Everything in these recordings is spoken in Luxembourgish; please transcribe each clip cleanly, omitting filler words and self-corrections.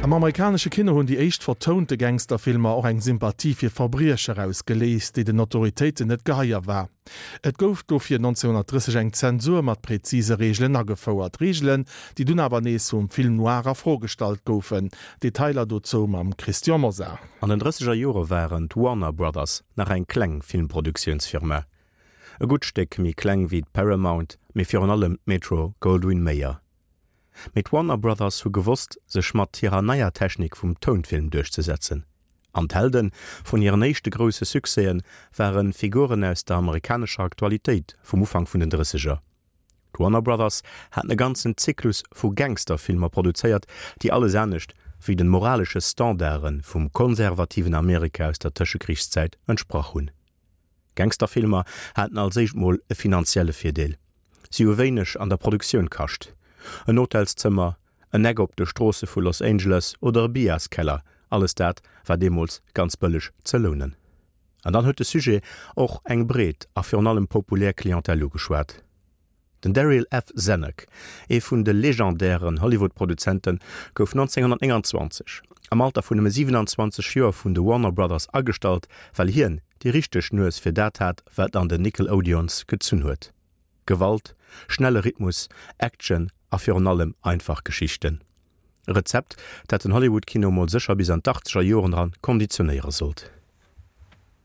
Am amerikanesche Kino hunn déi éischt vertounte Gangsterfilmer och eng Sympathie fir Verbriecher ausgeléist, déi den Autoritéiten net geheier war. Et gouf dofir 1930 eng Zensur mat präzise Reegelen agefouert, Reegelen, déi dunn awer nees vum Film noir a Fro gestallt goufen. Detailer dozou mam Christian Mosar. An den drësseger Jore waren d'Warner Brothers nach eng kleng Filmproduktiounsfirma. E gutt Stéck méi kleng wéi d'Paramount, mee virun allem d'Metro-Goldwyn-Mayer. Mee d'Warner Brothers hu gewosst, sech mat hirer neier Technik vum Tounfilm duerchzesetzen. An d'Helde vun hiren éischte grousse Succèse ware Figuren aus der amerikanescher Aktualitéit vum Ufank vun den Drësseger. D'Warner Brothers haten e ganzen Zyklus vu Gangsterfilmer produzéiert, déi alles anescht wéi de moralesche Standarde vum konservativen Amerika aus der Tëschekrichszäit entsprach hunn. Gangsterfilmer haten als éischt mol e finanzielle Virdeel, si hu wéineg an der Produktioun kascht. En Hotelszëmmer, en Eck op de Stroosse vu Los Angeles oder e Bierskeller, alles dat war deemools ganz bëlleg ze lounen. An dann huet de Sujet och eng breet a virun allem populär Clientèle ugeschwat. Den Darryl F. Zanuck, ee vun de legendären Hollywood-Produzenten, gouf 1929 am Alter vun nëmme 27 Joer vun de Warner Brothers agestallt, well hien déi richteg Nues fir dat hat, wat an den Nickelodeons gezunn huet, Gewalt, schnelle Rhythmus, Action a virun allem einfach Geschichten. E Rezept, dat den Hollywood-Kino mol sécher bis an d'Achtzeger Joren eran konditionéiere sollt.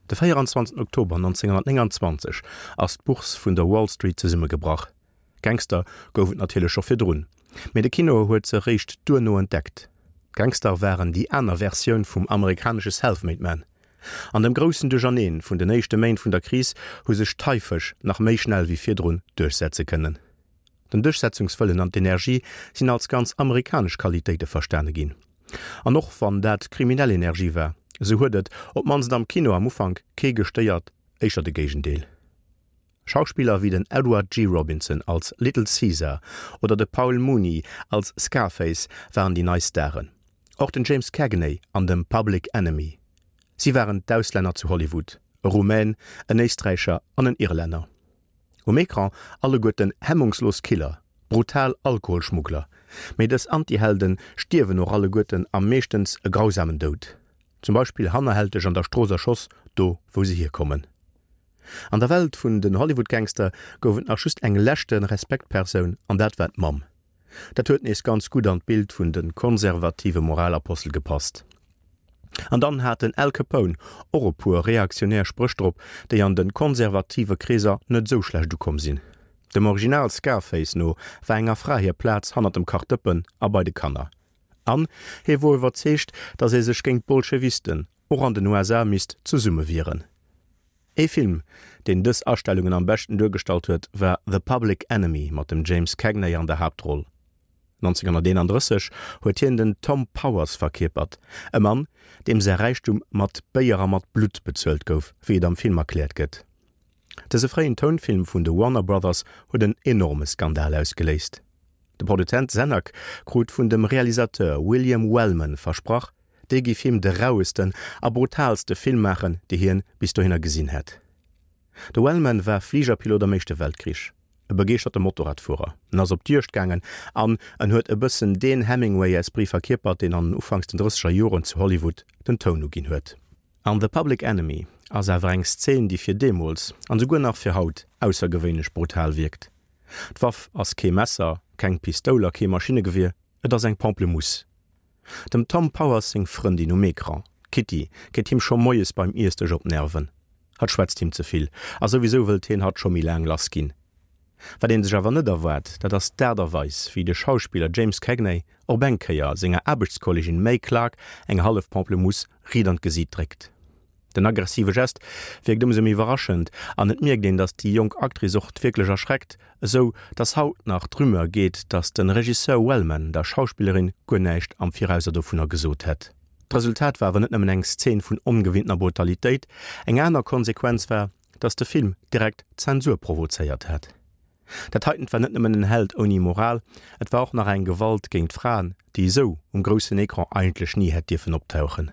De 24 Oktober 1929 ass d'Bourse vun der Wall Street zesummegebrach. Gangster gouf et natierlech scho virdrun, mee de Kino huet se eréischt duerno entdeckt. D'Gangster waren déi aner Versioun vum amerikanesche Self-Made Man. An dem groussen Duercherneen vun den éischte Méint vun der Kris hu sech d'Haifësch nach méi schnell wéi virdrun duerchsetze kënnen. Den Duerchsetzungswëllen an d'Energie sinn als ganz amerikanesch Qualitéite verstane ginn. An och wann dat kriminell Energie war, esou huet et, op d'mannst am Kino am Ufank, kee gestéiert, éischter de Géigendeel. Schauspiller wéi den Edward G. Robinson als Little Caesar oder de Paul Muni als Scarface waren déi nei Staren. Och den James Cagney an dem Public Enemy. Si waren d'Auslänner zu Hollywood, e Rumän, en Éisträicher an en Irlänner. Um Ecran alleguerten hemmungslos Killer, brutal Alkoholschmuggler, mee dës Antihelden stierwen och alleguerten a meeschtens e grausamen Doud, zum Beispill hannerhälteg an der Strooss erschoss, do wou se hierkommen. An der Welt vun den Hollywood-Gangster gouf et nach just eng leschte Respektpersoun an dat war d'Mamm. Dat huet nees ganz gutt an d'Bild vun de konservative Moralapostel gepasst. An dann hat den Al Capone och e puer reaktionär Spréch drop, déi an de konservative Kreeser net esou schlecht ukomm sinn. Dem Original Scarface no war enger Fra hir Plaz hannert dem Kachdëppen a bei de Kanner. An hie wor iwwerzeegt, datt ee sech géint d'Bolschewisten och an den USA misst zesummewieren. Ee Film, deen dës Astellungen am beschten duergestallt huet, war The Public Enemy mat dem James Cagney an der Haaptroll. 1931 huet hien den Tom Powers verkierpert, e Mann, deem säi Räichtum mat Béier a mat Blutt bezuelt gouf, wéi et am Film erkläert gëtt. Dëse fréien Tounfilm vun de Warner Brothers huet en enorme Skandal ausgeléist. De Produzent Zanuck krut vun dem Realisateur William Wellman versprach, dee géif him de rauesten a brutaalste Film maachen, dee hien bis dohinner gesinn hätt. De Wellman war Fligerpilot am Éischte Weltkrich, e begeeschterte Motorradfuerer. En ass op d'Juegd gaangen an en huet e bëssen deen Hemingway-Esprit verkierpert, deen an den Ufanks den drësseger Joren zu Hollywood den Toun uginn huet. An The Public Enemy ass awer eng Szen, déi fir deemools, an esouguer nach fir haut, aussergewéinlech brutal wierkt. D'Waff ass kee Messer, keng Pistoul a kee Maschinnegewier, et ass eng Pamplemousse. Dem Tom Powers seng Frëndin um Ecran, d'Kitty, geet him scho moies beim Iessdësch op d'Nerven. Hatt schwätzt him ze vill a souwisou wëllt hien hatt scho méi laang lass ginn. Wat een sech awer net erwaart, dat ass d'Aart a Weis, wéi de Schauspiller James Cagney op eng Kéier senger Aarbechtskollegin Mae Clarke eng hallef Pamplemousse riit an d'Gesiit dréckt. Den aggressive Gest wierkt ëmsou méi iwwerraschend an et mierkt een, datt déi jonk Actrice och wierklech erschreckt, esou datt haut nach d'Rumeur geet, datt de Regisseur Wellman der Schauspillerin guer näischt am Virauser dovunner gesot hätt. D'Resultat war awer net nëmmen eng Szen vun ongewinntener Brutalitéit, eng aner Konsequenz war, datt de Film direkt Zensur provozéiert hat. Dat heitent war net nëmmen en Held ouni Moral, et war och nach eng Gewalt géint Fraen, déi esou um groussen Ecran eigentlech ni hätt dierfen optauchen.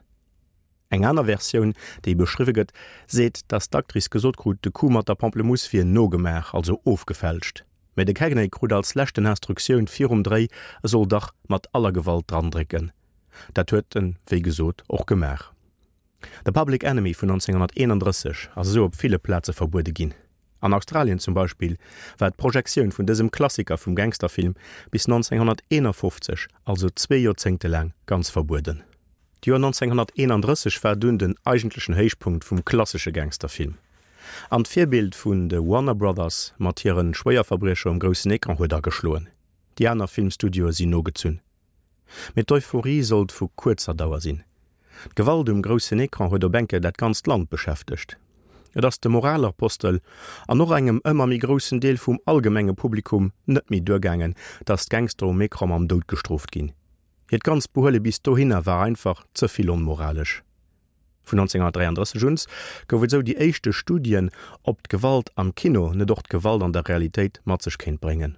Eng aner Versioun, déi beschriwwe gëtt, seet, datt d'Actrice gesot krut, de Coup mat der Pamplemousse wier nogemaach, also ofgefälscht. Mä de Cagney krut als leschten Instruktioun virum Dréi, e soll dach mat aller Gewalt drandrécken. Dat huet en, wéi gesot, och gemaach. The Public Enemy vun 1931 ass esou op ville Plaze verbuede ginn. An Australien zum Beispill war d'Projektioun vun dësem Klassiker vum Gangsterfilm bis 1951, also zwee Joerzéngte laang, ganz verbueden. D'Joer 1931 war dunn den eigentlechen Héichpunkt vum klassesche Gangsterfilm. An d'Virbild vun de Warner Brothers mat hire Schwéierverbriecher um groussen Ecran huet ageschloen. Déi aner Filmstudioe sinn nogezunn. Mee d'Euphorie sollt vu kuerzer Dauer sinn. D'Gewalt um groussen Ecran huet op eng Kéier dat ganzt Land beschäftegt. Et ass de Moralapostel an och engem ëmmer méi groussen Deel vum allgemenge Publikum net méi duergaangen, datt d'Gangster um Ecran mam Doud gestrooft ginn. Hiert ganzt Behuele bis dohinner war einfach ze vill onmoralesch. Vun 1933 uns gouf et sou déi éischte Studien, ob d'Gewalt am Kino net och d'Gewalt an der Realitéit mat sech kéint bréngen.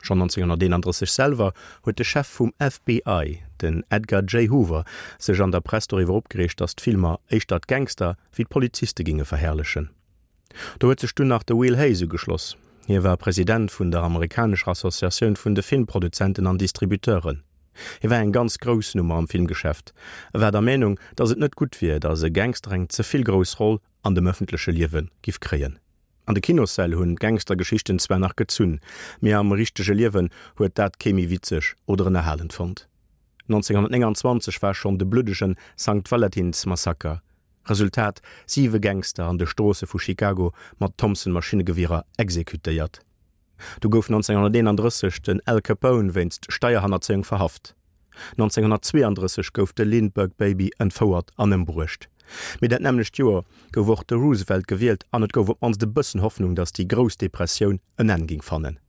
Schonn 1931 selwer huet de Chef vum FBI, den Edgar J. Hoover, sech an der Press doriwwer opgereegt, datt d'Filmer éischter d'Gangster wéi d'Poliziste ginge verherrlechen. Do huet sech dunn nach de Will Hays ugeschloss. Hie war President vun der amerikanescher Associatioun vun de Filmproduzenten an Distributeuren. Hie war eng ganz grouss Nummer am Filmgeschäft. E war der Meenung, datt et net gutt wier, datt e Gangster eng ze vill grouss Roll an dem ëffentleche Liewe giff kréien. An de Kinossäll hunn d'Gangstergeschichten zwar nach gezunn, mee am richtege Liewen huet dat kee méi witzeg oder ënnerhalend fonnt. 1929 war schonn de bluddegen Sankt Valentins-Massaker. Resultat, Siwe Gangster an de Stroosse vu Chicago mat Thompson-Maschinnegewierer exekutéiert. Du gouf 1931 den Al Capone wéinst Steierhannerzéiung verhaft. 1932 gouf de Lindbergh Baby entfouert an ëmbruecht. Mee dat nämmlecht Joer gouf och de Roosevelt gewielt an et gouf op d'mannst e bëssen Hoffnung, datt déi grouss Depressioun en Enn géing fannen.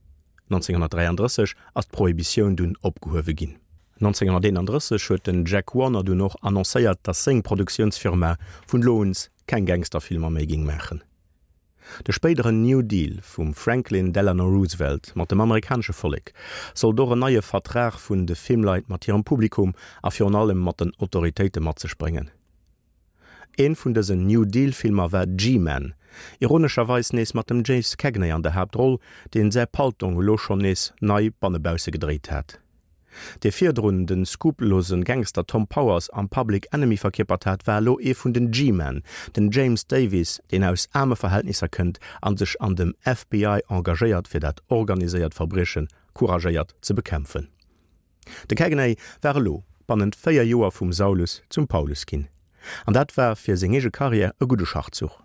1933 ass d'Prohibitioun dunn opgehuewe ginn. 1931 huet den Jack Warner dunn och annoncéiert, datt seng Produktiounsfirma vun elo uns keng Gangsterfilmer méi géing maachen. De spéideren New Deal vum Franklin Delano Roosevelt mat dem amerikanesche Vollek sollt och en neie Vertrag vun de Filmleit mat hirem Publikum a virun allem mat den Autoritéite mat sech bréngen. Een vun dësen New Deal Filmer war G-Men, ironescherweis nees mat dem James Cagney an der Haaptroll, deen säi Paltong elo schonn nees nei bannebausse gedréit hat. Dee virdrun de skrupellosen Gangster Tom Powers am Public Enemy verkierpert hat, war elo ee vun den G-Men, den James Davies, deen aus aarme Verhältnisser kënnt an sech an dem FBI engagéiert fir dat organiséiert Verbrieche couragéiert ze bekämpfen. De Cagney war elo bannent 4 Joer vum Saulus zum Paulus ginn. An dat war fir seng eege Karriär e gudde Schachzuch.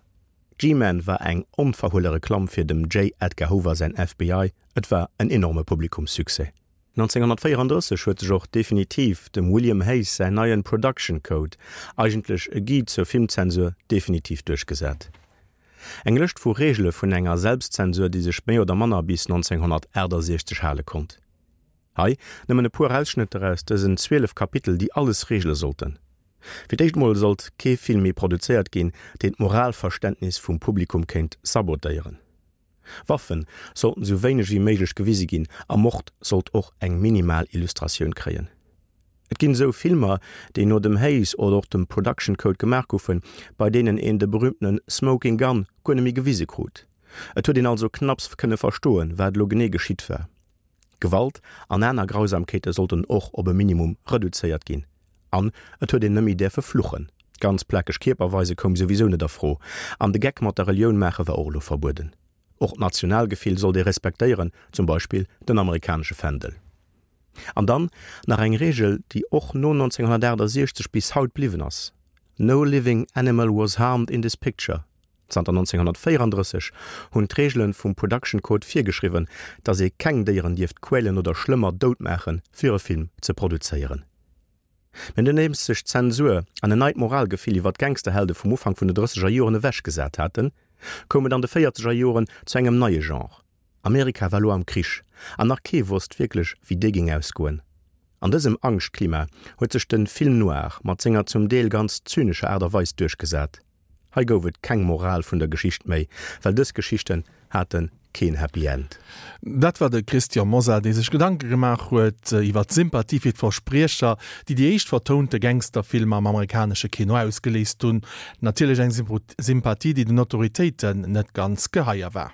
G-Men war eng onverhuele Reklamm fir dem J. Edgar Hoover säin FBI, et war en enorme Publikumssuccès. 1934 huet sech och definitiv dem William Hays säin neien Production Code, eigentlech e Guide zur Filmzensur, definitiv duerchgesat. Eng Lëscht vu Reegele vun enger Selbstzensur, déi sech méi oder manner bis 1968 hale konnt. Hei nëmmen e puer Ausschnëtter aus dësen 12 Kapitel, déi alles reegele sollten. Fir d'éischt mol sollt kee Film méi produzéiert ginn, deen d'Moralverständnis vum Publikum kéint sabotéieren. Waffen sollten sou wéineg wéi méiglech gewise ginn a Mord sollt och eng minimal Illustratioun kréien. Et ginn esou Filmer, déi no dem Hays oder och dem Production Code gemaach goufen, bei deenen een de berühmtene Smoking Gun guer net méi gewise krut. Et huet een also knapps kënne verstoen, wat elo genee geschitt war. Gewalt an aner Grausamkeete sollten och op e Minimum reduzéiert ginn. An et huet een net méi däerfe fluchen. Ganz plakeg Kierper weise koum souwisou net a Fro. An de Geck mat der Relioun maache war och elo verbueden. Och d'Nationalgefill sollt ee respektéieren, zum Beispill den amerikanesche Fändel. An dann nach eng Reegel, déi och no 1968 bis haut bliwwen ass, No living animal was harmed in this picture. Zanter 1934 hunn d'Reegele vum Production Code virgeschriwwen, datt ee keng Déieren dierft quälen oder schlëmmer dout maachen, fir e Film ze produzéieren. Mä nodeems sech d'Zensur an en neit Moralgefill iwwer d'Gangsterhelde vum Ufank vun de drësseger Joren ewechgesat haten, koum et an de véierzeger Joren zu engem neie Genre. Amerika war lo am Krich an nach kee wosst wierklech, wéi dee géing ausgoen. An dësem Angschtklima huet sech de Film noir mat senger zum Deel ganz zynescher Aart a Weis duerchgesat. Hei gouf et keng Moral vun der Geschicht méi, well dës Geschichten hate keen Happy End. Dat war de Christian Mosar, dee sech Gedanke gemaach huet iwwer d'Sympathie fir d'Verspriecher, déi déi éischt vertounte Gangsterfilmer am amerikanesche Kino ausgeléist hunn. Natierlech eng Sympathie, déi den Autoritéiten net ganz geheier war.